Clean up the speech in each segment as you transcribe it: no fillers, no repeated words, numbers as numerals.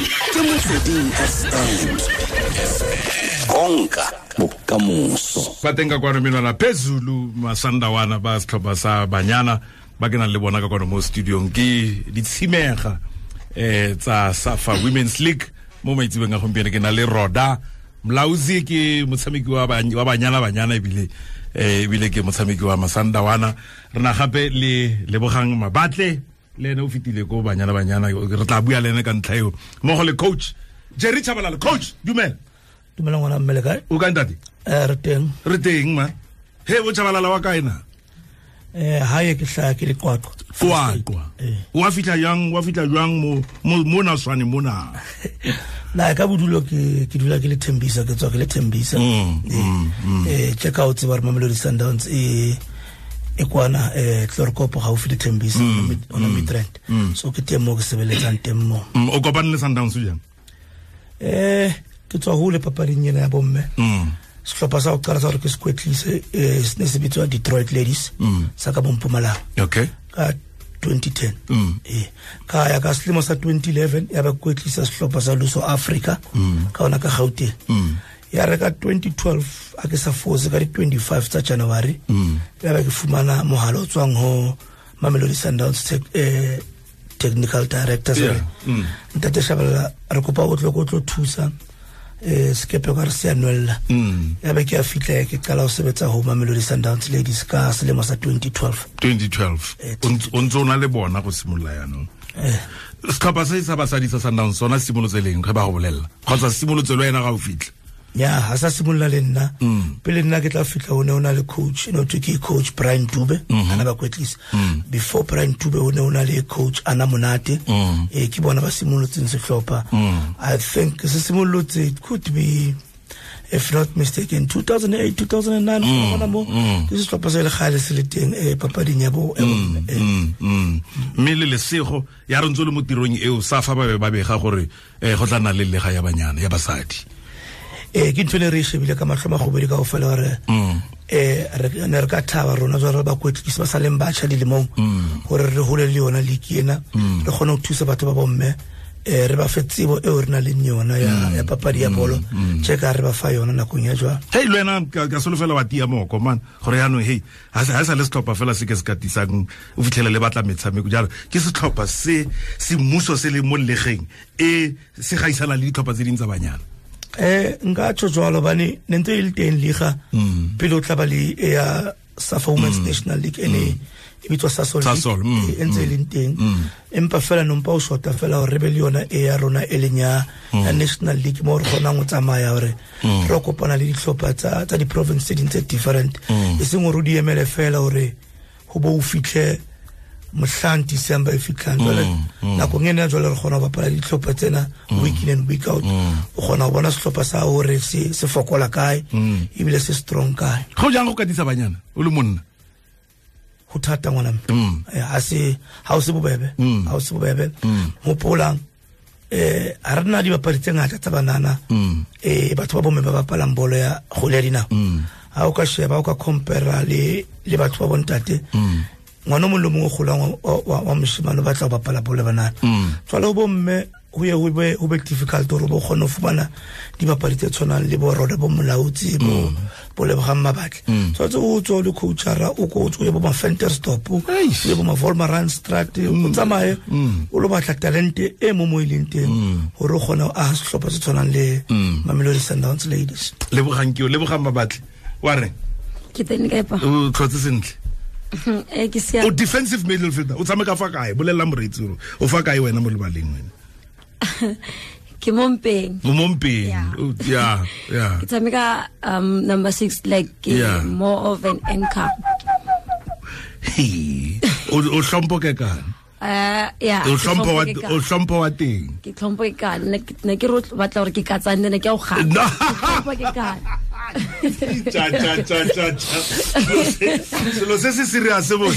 Ke Motsweding FM. Konka bokamoso. Ba teng ka kwano menwana phezulu Masandawana ba setlhopha sa Banyana ba ke nang le bona ka kwano mo studiong ke ditshimega tsa Safa Women's League. Mo maitsebeng a gompieno ke na le Roda Mlauzi, ke motshameki wa Banyana Banyana ebile ke motshameki wa Masandawana. Re na gape le Lebogang Mabatle, le ene o fetile ko Banyana Banyana, re tla bua le ene ka ntlha eo, mmogo le coach Jerry Tshabalala. Coach, dumela. Dumela ngwana mme, le kae? O kae ntate? Re teng. Re teng ma. He bo Tshabalala wa kae na? Hae ke hlaya ke le Qwaqwa. Qwaqwa. Wa fihla jang, wa fihla jwang mo na swane mona? Na ka bodulo ke dula ke le Thembisa, ke tswa ke le Thembisa. Check out tseba re Mamelodi Sundowns e kwana Chloorkop gaufi le Thembisa ona Midrand. So ke teng mo ke sebeletsang teng mo. O kopane le Sundowns jang? Ke tswa hole papading ena ya bomme. Sehlopha sa ho qala sa hore ke se kwetlise, se ne se bitswa Detroit Ladies, sa ka Mpumalanga. Okay. Ka 2010. Ka ya ka selemo sa 2011 ya ba kwetlisa sehlopha sa Luso Africa, ka ona ka Gauteng. Ya re ka 2012 a ke sa fose ka di 25 tsa January, ya ba ke fumana mohala o tswang ho Mamelodi Sundowns technical director. Ntate Shabalala, re kopa o tlo thusa sekepe ka re se a nwella. Ya be ke a fihla ke qala ho sebetsa ho Mamelodi Sundowns Ladies ka selemo sa 2012. 2012. O ntse o na le bona go simolola jaanong. Setlhopha se sa basadi sa Sundowns sona se simolotse leng ge ba go bolelela? Kgotsa se simolotse le wena ga o fitlha? Ya, ha sa simolola le nna. Pele nna ke tla fihla ho ne ho na le coach, no thwe ke coach Brian Dube, ana ba kwetlisa. Before Brian Dube ho ne ho na le coach Ana Monate. Ke bona ba simolotseng sehlopha. I think se simolotse, it could be, if not mistaken, 2008, 2009, gona mo. Ke sehlopha se le kgale se le teng, papading ya bo, Mme le lesego ya re ntse le mo tirong eo Safa ba be ba bega gore go tla nna le lega ya banyana ya basadi. Ke ntho e re e shebile ka mahlo magobedi kaofela hore, re ne re ka thaba rona jwalo re bakwetlisi ba sa leng batjha dilemong, hore re hole le yona league ena, re kgone ho thusa batho ba bomme, re ba fe tsebo eo re nang le yona ya papadi ya bolo, tje ka re ba fa yona nakong ya jwale. Hei, le wena ka solofela wa tia moko, man, gore jaanong, hei, ha se le setlhopha fela se ke se katisang, o fitlhele le batla metshameko jalo. Ke setlhopha se semmuso se le mo legeng, e se gaisana le ditlhopha tse ding tsa banyana. Nka tjho jwalo hobane ne ntse e le teng liga, pele o tla ba le e ya Safa Women's National League, ene e bitswa Sasol League, Sasol, e ntse e leng teng. Empa fela nompa o shota fela hore re be le yona e ya rona e leng ya National League, mo re kgonang ho tsamaya hore re kopana le dihlopha tsa di-province tse ding tse different. E seng hore o di emele fela hore ho bo o fihle mohlang December e fihlang. Jwale nakong ena jwale re kgona ho bapala dihlopha tsena week in and week out. O kgona ho bona sehlopha sa hore se fokola kae, ebile se strong kae. Go jang go katisa banyana o le monna? Ho thata ngwana mme. Ha o se bobebe. Ha o se bobebe. Hopolang, ha re na dibapadi tse ngata tsa banana. Batho ba bomme ba bapalang bolo ya kgwele ya dinao. Ha o ka sheba, ha o ka compare le batho ba bontate, ngwana o mong le mong o kgolang wa moshemane o batla ho bapala bolo ya banana. Jwale ho bomme ho ye ho be difficult hore bo kgone ho fumana dibapadi tse tshwanang le bo Roda, bo Molautsi, bo Lebogang Mabatle. Tshwanetse o tswe o le coachara, o ko o tswe o ye bo ma-Ventersdorp, o ye bo ma-Wolmaranstad, o tsamaye, o lo batla talente e mo mo e leng teng, hore o kgone ho aha sehlopha se tshwanang le Mamelodi Sundowns Ladies. Lebogang ke o, Lebogang Mabatle. Wa reng? Ke teng kae pa? O tlhotse sentle. Ke siame. O defensive midfielder, o tshameka fa kae? Bolella moreetsi hore o fa kae wena mo lebaleng wena? Ke mo mpeng. O mo mpeng. Yeah. O, yeah, yeah. Ke tshameka, number 6, like, ke more of an anchor. He. O hlompho ke kang? Yeah, O ke hlompho wa hlompho ke o hlompho wa teng. Ke hlompho ke kang. Ne ke re o batla hore ke katsane, ne ke a o gana. No. Ke hlompho ke kang. Cha, cha, cha, cha, cha. Selo se se serious bo.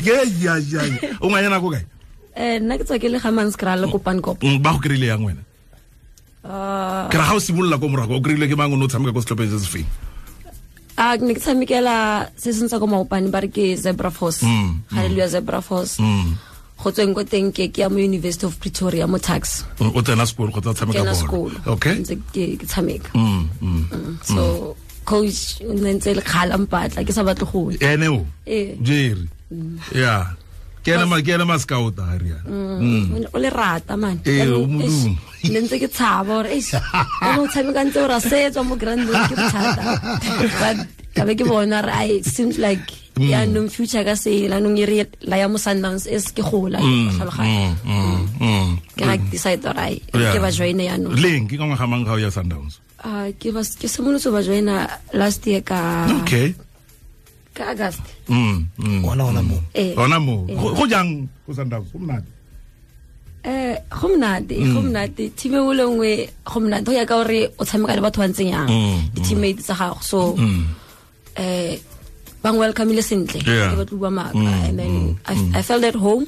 Ye, ya, ya, ya. O ngwanyana ko kae? Nna ke tswa ke le ga Manskraal le Kopankop. Ba go kry-ile yang wena? Ke ra ga o simolola ko morago, o kry-ile ke mang o ne o tshameka ko setlhopheng se se feng? Ke ne ke tshamekela se seng sa ko Maopane, ba re ke Zebra Force. Hallelujah Zebra Force. Go tsweng ko teng ke ya mo University of Pretoria mo Tuks. O tsena sekolo kgotsa tshameka bolo? Okay. Ntse ke tshameka. So coach o ne ntse le kgala mpatla ke sa batle go ya. Ene o? Jerry. Yeah. Ke ena ma scout a re yana. O le rata man. O modumo. Ne ntse ke tshaba gore eish. O tshameka ntse o ra setswa mo groundong ke bothata. But ka be ke bona re it seems like ya nong future ka se la nong ere la ya mo Sundowns e se ke gola tlhaloganya. Ke ga decide gore ke ba join ya no. Leng ke ka ngwaga mang ga o ya Sundowns? Ke ba ke simolotse ba joina last year ka Okay. Ka August. Ona mo. Ona mo. Go jang go Sundowns go monate? Go monate team e le nngwe go monate go ya ka gore o tshameka le batho ba ntseng yang di teammates tsa gago so bang welcome le sentle ke batlo bua maka and then I felt at home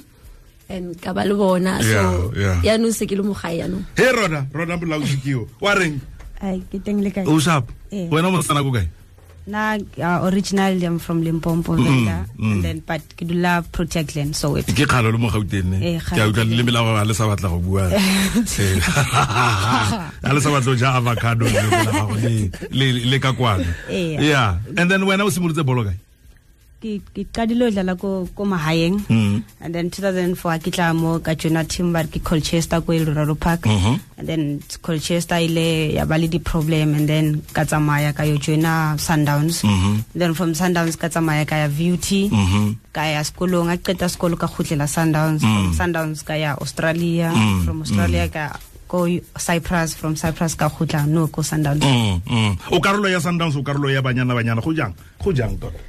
and ka ba le bona so ya no se ke le mo gae ya no. He rona molaodi ke yo wa reng? Ai ke teng le kae? O sharp. Wena mo tsana go kae? Na originally I'm from Limpopo Venda and then but ke dula Protea Glen so it. Ke kgalo le mo Gauteng ne. Ke a utlwa le mela ba le sa batla go bua. A le sa batla ja avocado le la gago le ka kwana. Yeah. And then wena o simolotse bolo kae? Ke qadile ho dlala ko mahaeng and then 2004 ke tla mo ka joina team ba ke Colchester ko Eldorado Park and then Colchester ile ya ba le di problem and then ka tsamaya ka yo joina Sundowns then from Sundowns ka tsamaya ka ya VUT ka ya sekolong a qeta sekolo ka khutlela Sundowns from Sundowns ka ya Australia from Australia ka go Cyprus from Cyprus ka khutla no ko Sundowns. O karolo ya Sundowns o karolo ya Banyana go jang tota?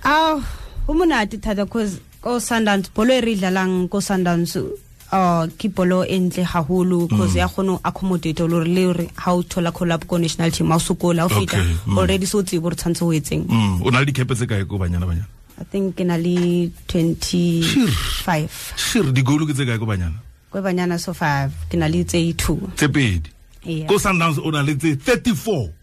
Ah, ho monate thata cause ko Sundowns bolo e re dlalang ko Sundowns ke bolo e ntle haholo cause ya kgone accommodate lo re le ha o thola collab ko national team ha o sokola o fita already so tsebo re tshwantse ho etseng. O na le dikepe tse kae ko Banyana? I think ke na le 25. Sure, di goal ke tse kae ko Banyana? Ko Banyana so far ke na le tse 2. Tse pedi. Ko Sundowns o na le tse 34.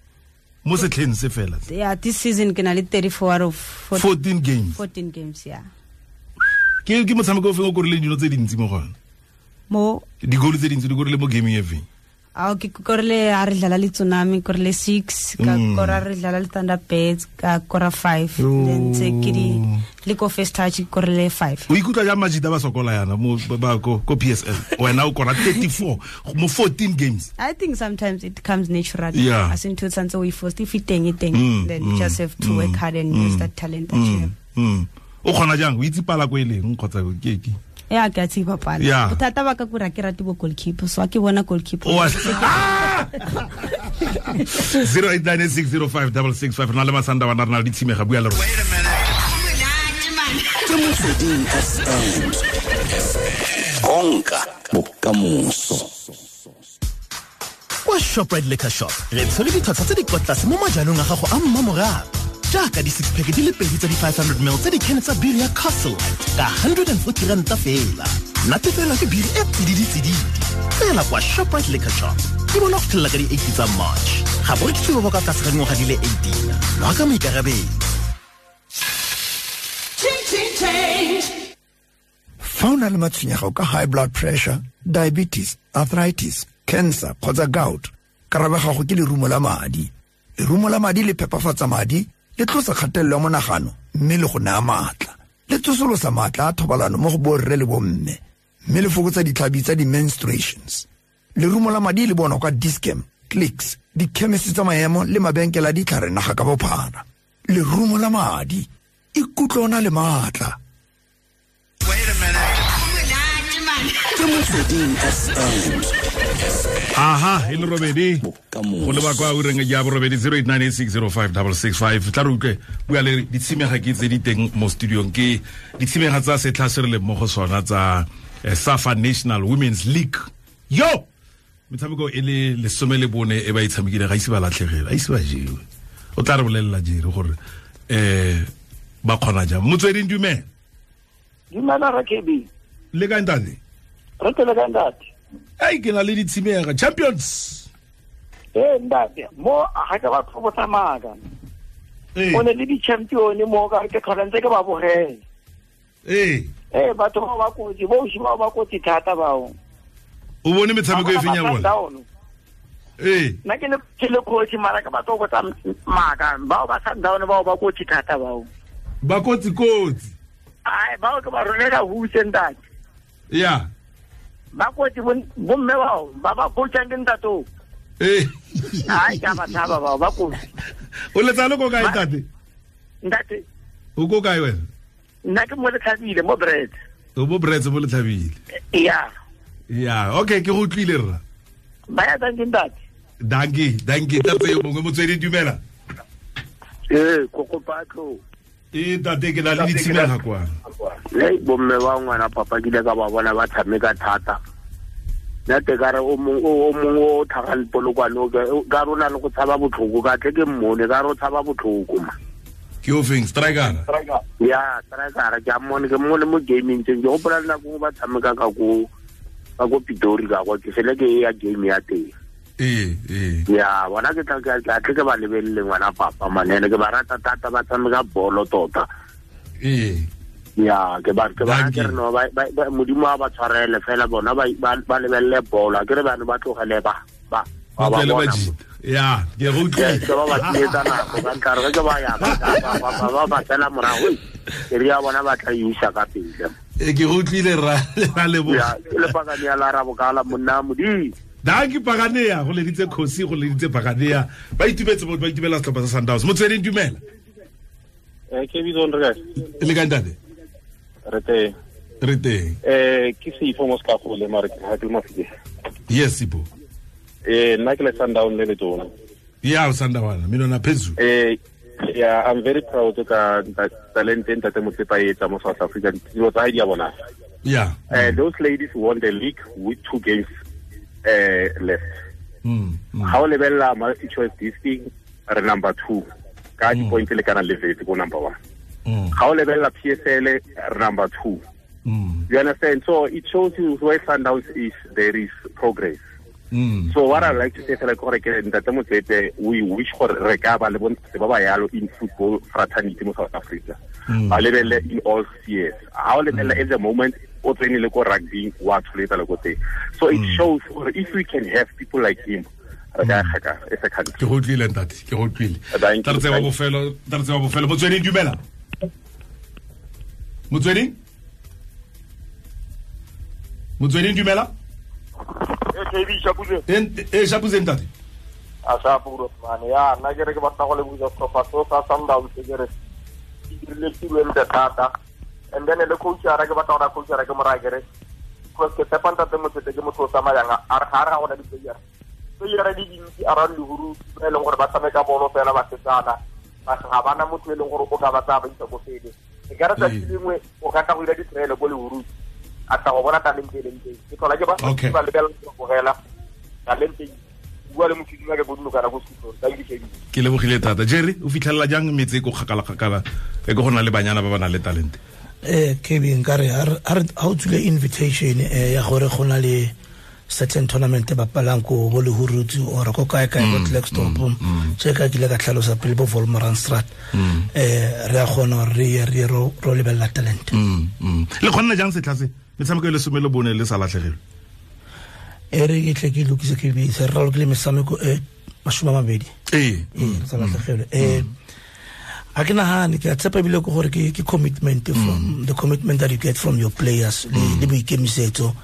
Mo setlheng se fela. Yeah, this season ke na le 34 out of 14 games. 14 games, yeah. Ke motshameko o feng o korile dino tse dintsi mo gona? Mo di goal tse dintsi di korile mo gaming e feng? Ah, ke korile a re dlala le Tsunami, korile 6, ka kora re dlala le Thunderbirds, ka kora 5, then tse ke di le ko first touch korile 5. O ikutlwa jang majita ba sokola yana mo ba ko PSL? Wena o kora 34 mo 14 games. I think sometimes it comes naturally. Yeah. As in to tshwantse o force if it teng then you just have to work hard and use that talent that you have. O kgona jang o itse pala ko eleng kgotsa ke ke? Yeah, ke a tseba pala. Bothata ba ka kura ke rate bo goalkeeper so ke bona goalkeeper. 0896056665 rena le Masanda wa rena le ditshimega bua le rona. Ke Motsweding FM. Konka bokamoso. Kwa Shoprite Liquor Shop re tshwere ditlhwatlhwa tse di kwa tlase mo majalong a gago a mmamorago. Jaaka di 6 pack di le pedi tsa di 500 ml tse di can tsa biri ya Castle Lite ka 140 ranta fela. Natefela ke biri e tsididi-tsididi fela kwa Shoprite Liquor Shop. Di bona go fitlhelela ka di 8 tsa March. Ga bo rekisiwe ba ka tlase ga dingwaga di le 18. Nwa ka maikarabelo. Fa o na le matshwenyego ka high blood pressure, diabetes, arthritis, cancer kgotsa gout, karabo ya gago ke lerumo la madi. Lerumo la madi le phepafatsa madi, le tlosa kgatelelo ya monagano mme le go naya maatla. Le tsosolosa maatla a thobalano mo go borre le bomme, mme le fokotsa ditlhabi tsa di-menstruations. Lerumo la madi le bonwa kwa Dis-Chem, Clicks, dikhemisi tsa maemo le mabenkele a ditlhare naga ka bophara. Lerumo la madi, ikutlwe o na le maatla. Ke Motsweding FM. Aha, e le robedi. Go leba kwa ureng ya borobedi 0898605665 tla re utlwe bua le ditshimega ke tse di teng mo studiong ke ditshimega tsa setlha se re leng mo go sona tsa SAFA National Women's League. Yo! Metshameko e le 14 e ba e tshamekile ga ise ba latlhegele, ga ise ba jewe. O tla re bolelela jere gore ba kgona jang. Motsweding dumela. Dumela ra KB. Le kae ntate? Re tele kae ntate? Ai ke na le ditshimega champions. Ntate mo ga ke batho bo tsamaka. O ne le di champion mo ka ke tlhola ntse ke ba bogela. Ee. Ee, batho bao ba kotsi, bo ausi bao ba kotsi thata bao. O bone metshameko e feng ya bona? Ee. Nna ke le coach, mara ke batho go tsa maaka, bao ba Sundown bao ba kotsi thata bao. Ba kotsi kotsi. Ai, bao ke ba rolela huse ntate. Ya. Ba kotsi bomme bao, ba ba coachang ke ntate. Ee. Ai, ka ba tshaba bao, ba kotsi. O letsa le ko kae ntate? Ntate. O ko kae wena? Nna ke mo Letlhabile, mo Brits. O mo Brits, mo Letlhabile. Ya. Ya, okay, ke go utlwile rra. Ba ya dankie ntate. Dankie, dankie. Tate yo mongwe motswedi dumela. Ee, kokopatlo. Ee, tate ke na le ditshimega kwa. Le bomme ba ngwana papa ke ile ka ba bona ba tshameka thata. Nna te ka re o mongwe o tlhagang Polokwane ka re o na le go tshaba botlhoko, ka tle ke mmone ka re o tshaba botlhoko ma. Ke o feng, striker? Ya, striker ke a mmone, ke mmone mo gaming tseng. Ke gopola le nako ba tshameka ka ko Pitori ka kwa, ke fele ke ya game ya teng. Ee, ee. Ya, bona ke tla tle ke ba lebelele ngwana papa manene, ke ba rata thata, ba tshameka bolo tota. Ee. Ya, ke ba ke re no ba Modimo a ba tshwarele fela bona ba lebelele bolo, a ke re bana ba tlogele ba ba ba. Ya, ke go utlwile. Ke ba ba tsietsa nako ka ntlha re ke ba ya ba ba tsela morago, ke re ya bona ba tla isa ka pele. E ke go utlwile ra leboga. Ya, ke le pakane ya la rabokala monna Modimo. Dankie Paganea, go leditse Khosi, go leditse Paganea. Ba itumetse ba itumela setlhopha sa Sundowns. Motsweding dumela. Ke bitso re kae? Le kae ntate? Re teng. Re teng. Ke Sipho mo Sekagole mare ke ha ke le Mafike. Yes Sipho. Nna ke le Sundown le letona. Ya Sundown, mina na phezulu. Yeah, I'm very proud ka talent ntate Motsepe a etsa mo South Africa. Dilo tsa hae di a bona. Yeah. Those ladies won the league with 2 games left. How lebella multi choice this thing re number 2 ka di point le kana le vetse go number 1. How lebella PSL re number 2. You understand? So it shows you where Sundowns is, there is progress. So what I like to say like gore ke ntate Motsepe, we wish gore re ka ba le bontate ba ba yalo in football fraternity mo South Africa. Ba lebelle in all spheres. How lebella at the moment o tsene le ko rugby wa tsholetsa le ko teng. So it shows if we can have people like him, re ka gaka as a country. Ke go utlwile ntate, ke go utlwile. Tla re tseba bofelo, tla re tseba bofelo. Motsweding dumela. Motsweding? Motsweding dumela. KB Shapuze. Shapuze ntate. A Shapuro man. Ya, nna ke re ke batla go leboga setlhopha seo sa Sundowns ke re ke dirile tiro e ntle thata. And then le coach ara ke batla gore coach ara ke mo raya ke re because ke tshepa ntate Motsepe ke motho o tsamayang a re ga re ga gona di-player. Player di dintsi around Lehuru ba e leng gore ba tshameka bolo fela ba setsana, ba ga bana motho e leng gore o ka ba tsaya ba isa ko pele. E ka re tsatsi lengwe o ka tla go dira di-trial ko Lehuru a tla go bona talente e leng teng. Ke tlhola ke ba ba lebelela go bogela talente bua le motho ke bodulokana ko Sekhukhune. Thank you KB. Ke lebogile thata. Jerry, o fitlhelela jang metse e ko kgakala-kgakala e ko go na le banyana ba ba nang le talente? KB nkare ha o tswile invitation ya gore go na le certain tournament ba bapalang ko bo Lehurutsi or ko kae kae ko Klerksdorp, tse ka kile ka tlhalosa pele bo Wolmaranstad, re a kgona re ye re ro lebella talent. Le kgonna jang setlha se metshameko e le 14 le sa latlhegelwe? E re ke tle ke lokise KB, se re ralokile metshameko e 20. Ee, sa latlhegelwe. A ke nagane ke a tshepa ebile ke gore ke commitment from the commitment that you get from your players le boikemisetso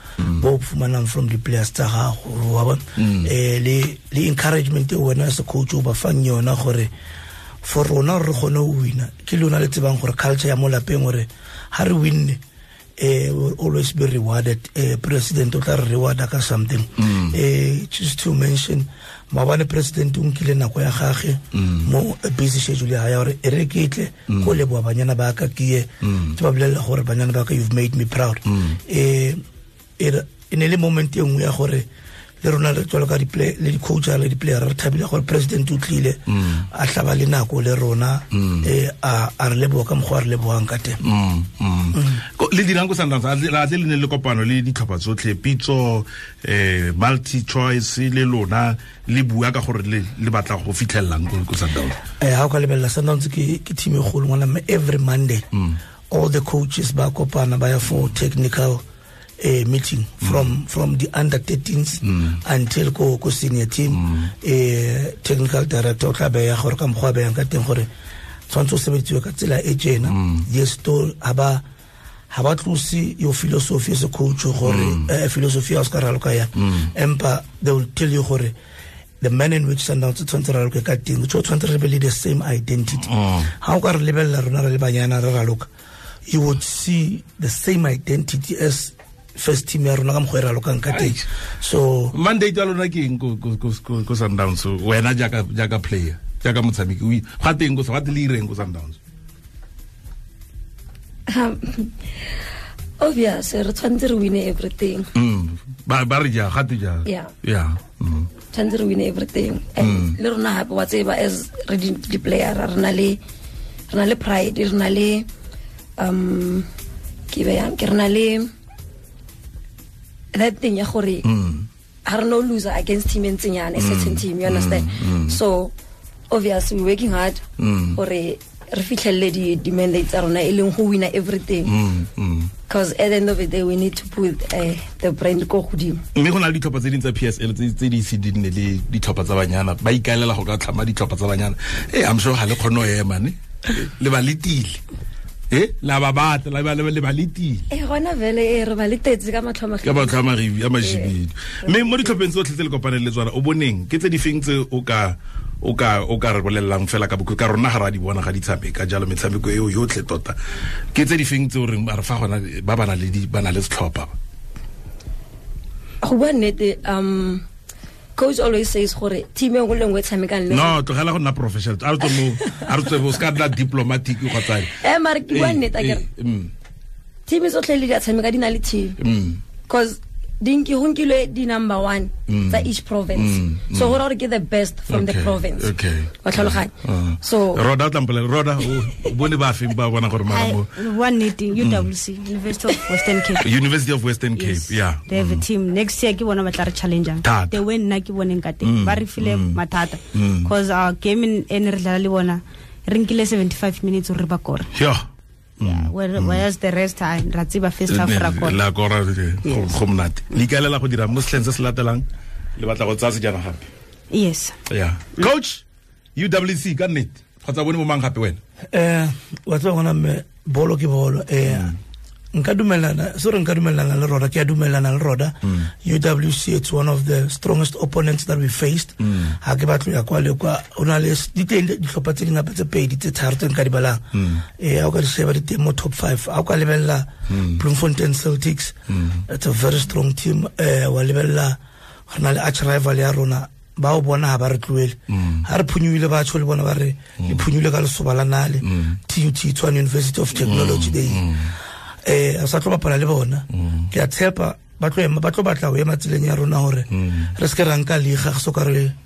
bo fumanang from the players tsa gago, wa bona, le encouragement e wena as a coach o ba fang yona gore for rona re kgone go wina. Ke lona le tsebang gore culture ya mo lapeng gore ha re winne will always be rewarded. President o tla re rewarda ka something. Just to mention, maabane president o nkile nako ya gagwe mo busy schedule ya gore e re ke tle go leboa banyana ba ka ke ye ke ba bolelela gore banyana ba ka, you've made me proud. E ne le moment e nngwe ya gore le rona re tswela ka di-play le di-coach le di-player re thabile gore president o tlile a tlaba le nako le rona, a re leboga ka mokgwa a re lebogang ka teng. Le dirang ko Sundowns a tle le ne le kopano le ditlhopha tsotlhe, Pitso, multi choice le lona le bua ka gore le batla go fitlhelelang ko Sundowns? Ha o ka lebelela Sundowns ke team e kgolo ngwana, mme every Monday All the coaches ba kopana ba ya for technical meeting from the under 13s until ko senior team. Technical director o tla beya gore ka mokgwa a beyang ka teng gore tshwanetse o sebetsiwe ka tsela e tjena. Yes, to ha ba tlose your philosophy as a coach gore philosophy ya o ska raloka yang, empa they will tell you gore the man in which Sundowns tshwanetse re raloke ka teng, o tshwanetse re be le the same identity. Ha o ka re lebella rona re le banyana re raloka, you would see the same identity as first team ya rona ka mokgwa e ralokang ka teng. So mandate ya lona ke eng ko Sundowns? Wena jaaka player, jaaka motshameki, ga teng ko ga le ireng ko Sundowns? Obvious, re tshwanetse re win everything. Ba re ja ga te ja. Yeah. Tshwanetse re win everything. And le rona hape wa tseba as re di player re na le pride, re na le ke be yang ke re na le that thing ya gore ha re no loser against team e ntseng a certain team, you understand? So obviously we're working hard gore re fitlhelele di mandate tsa rona e leng go wina everything, because at the end of the day we need to put the brand ko godimo. Mme go na le ditlhopha tse dingwe tsa PSL tse di ise di nne le ditlhopha tsa banyana, ba ikaelela go ka tlhama ditlhopha tsa banyana. I'm sure ga le kgone go ema ne le ba letile. La ba batla la le ba letile. Gona vele re ba letetse ka matlho a ka matlho a magibi a majibidu. Mme mo ditlhopheng tsotlhe tse le kopaneng le tsona o boneng ke tse di feng tse o ka re bolellang fela ka bokhutlo ka rona ga ra di bona ga di tshameka jalo metshameko eo yotlhe tota, ke tse di feng tse o reng re fa gona ba ba na le ba na le setlhopha? Go bua nnete, coach always says gore team e nngwe le nngwe e tshamekang le no tlogela go nna professional, a re tswe mo a re tswe bo ska nna diplomatic kgotsa mare ke bua nnete akere team tsotlhe le di a tshameka di na le team, because di go nkilwe di number 1 tsa each province, so gore ke the best from the province. Wa tlhaloganya? So Roda tlampele Roda o bone ba feng ba bona gore mara mo one meeting UWC, University of Western Cape. University of Western Cape, yeah, they have a team next year. Ke bona ba tla re challenge the way nna ke boneng ka teng, ba re file mathata because our game in re dlala le bona re nkile 75 minutes re ba kora. Yeah, whereas the rest I ra tseba first half ra kora. La kora go monate. Le ikaelela go dira mo setlheng se se latelang le batla go tsaya sejana gape? Yes. Yeah. Coach, UWC ka nnete kgotsa bone bo mang gape wena? Wa tseba gona mme bolo ke bolo. Nka dumelana, sorry, nka dumelana le Roda, ke a dumelana le Roda. UWC, it's one of the strongest opponents that we faced. Ha ke batlo ya kwa le kwa, o na le diteng dihlopha tse dingata tse pedi tse tharo tse nka di balang. Ha o ka di sheba di teng mo top 5. Ha o ka lebella Bloemfontein Celtics, it's a very strong team. Wa lebella re na le arch rival ya rona, ba o bona ha ba re tloele. Ha re phunyuile ba tsho le bona ba re le phunyuile ka lesoba la nale. TUT, Tshwane University of Technology, they a sa tlo bapala le bona. Ke a tshepa ba tlo batla ho ema tseleng ya rona hore re se ke ra nka liga go soka re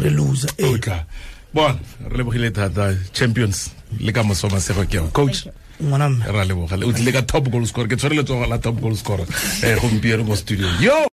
loser. Tla bona re lebogile thata champions le ka moso masego ke coach ngwana mme ra leboga o tlile ka top goal scorer, ke tshwere letsogo la top goal scorer gompieno mo studio yo.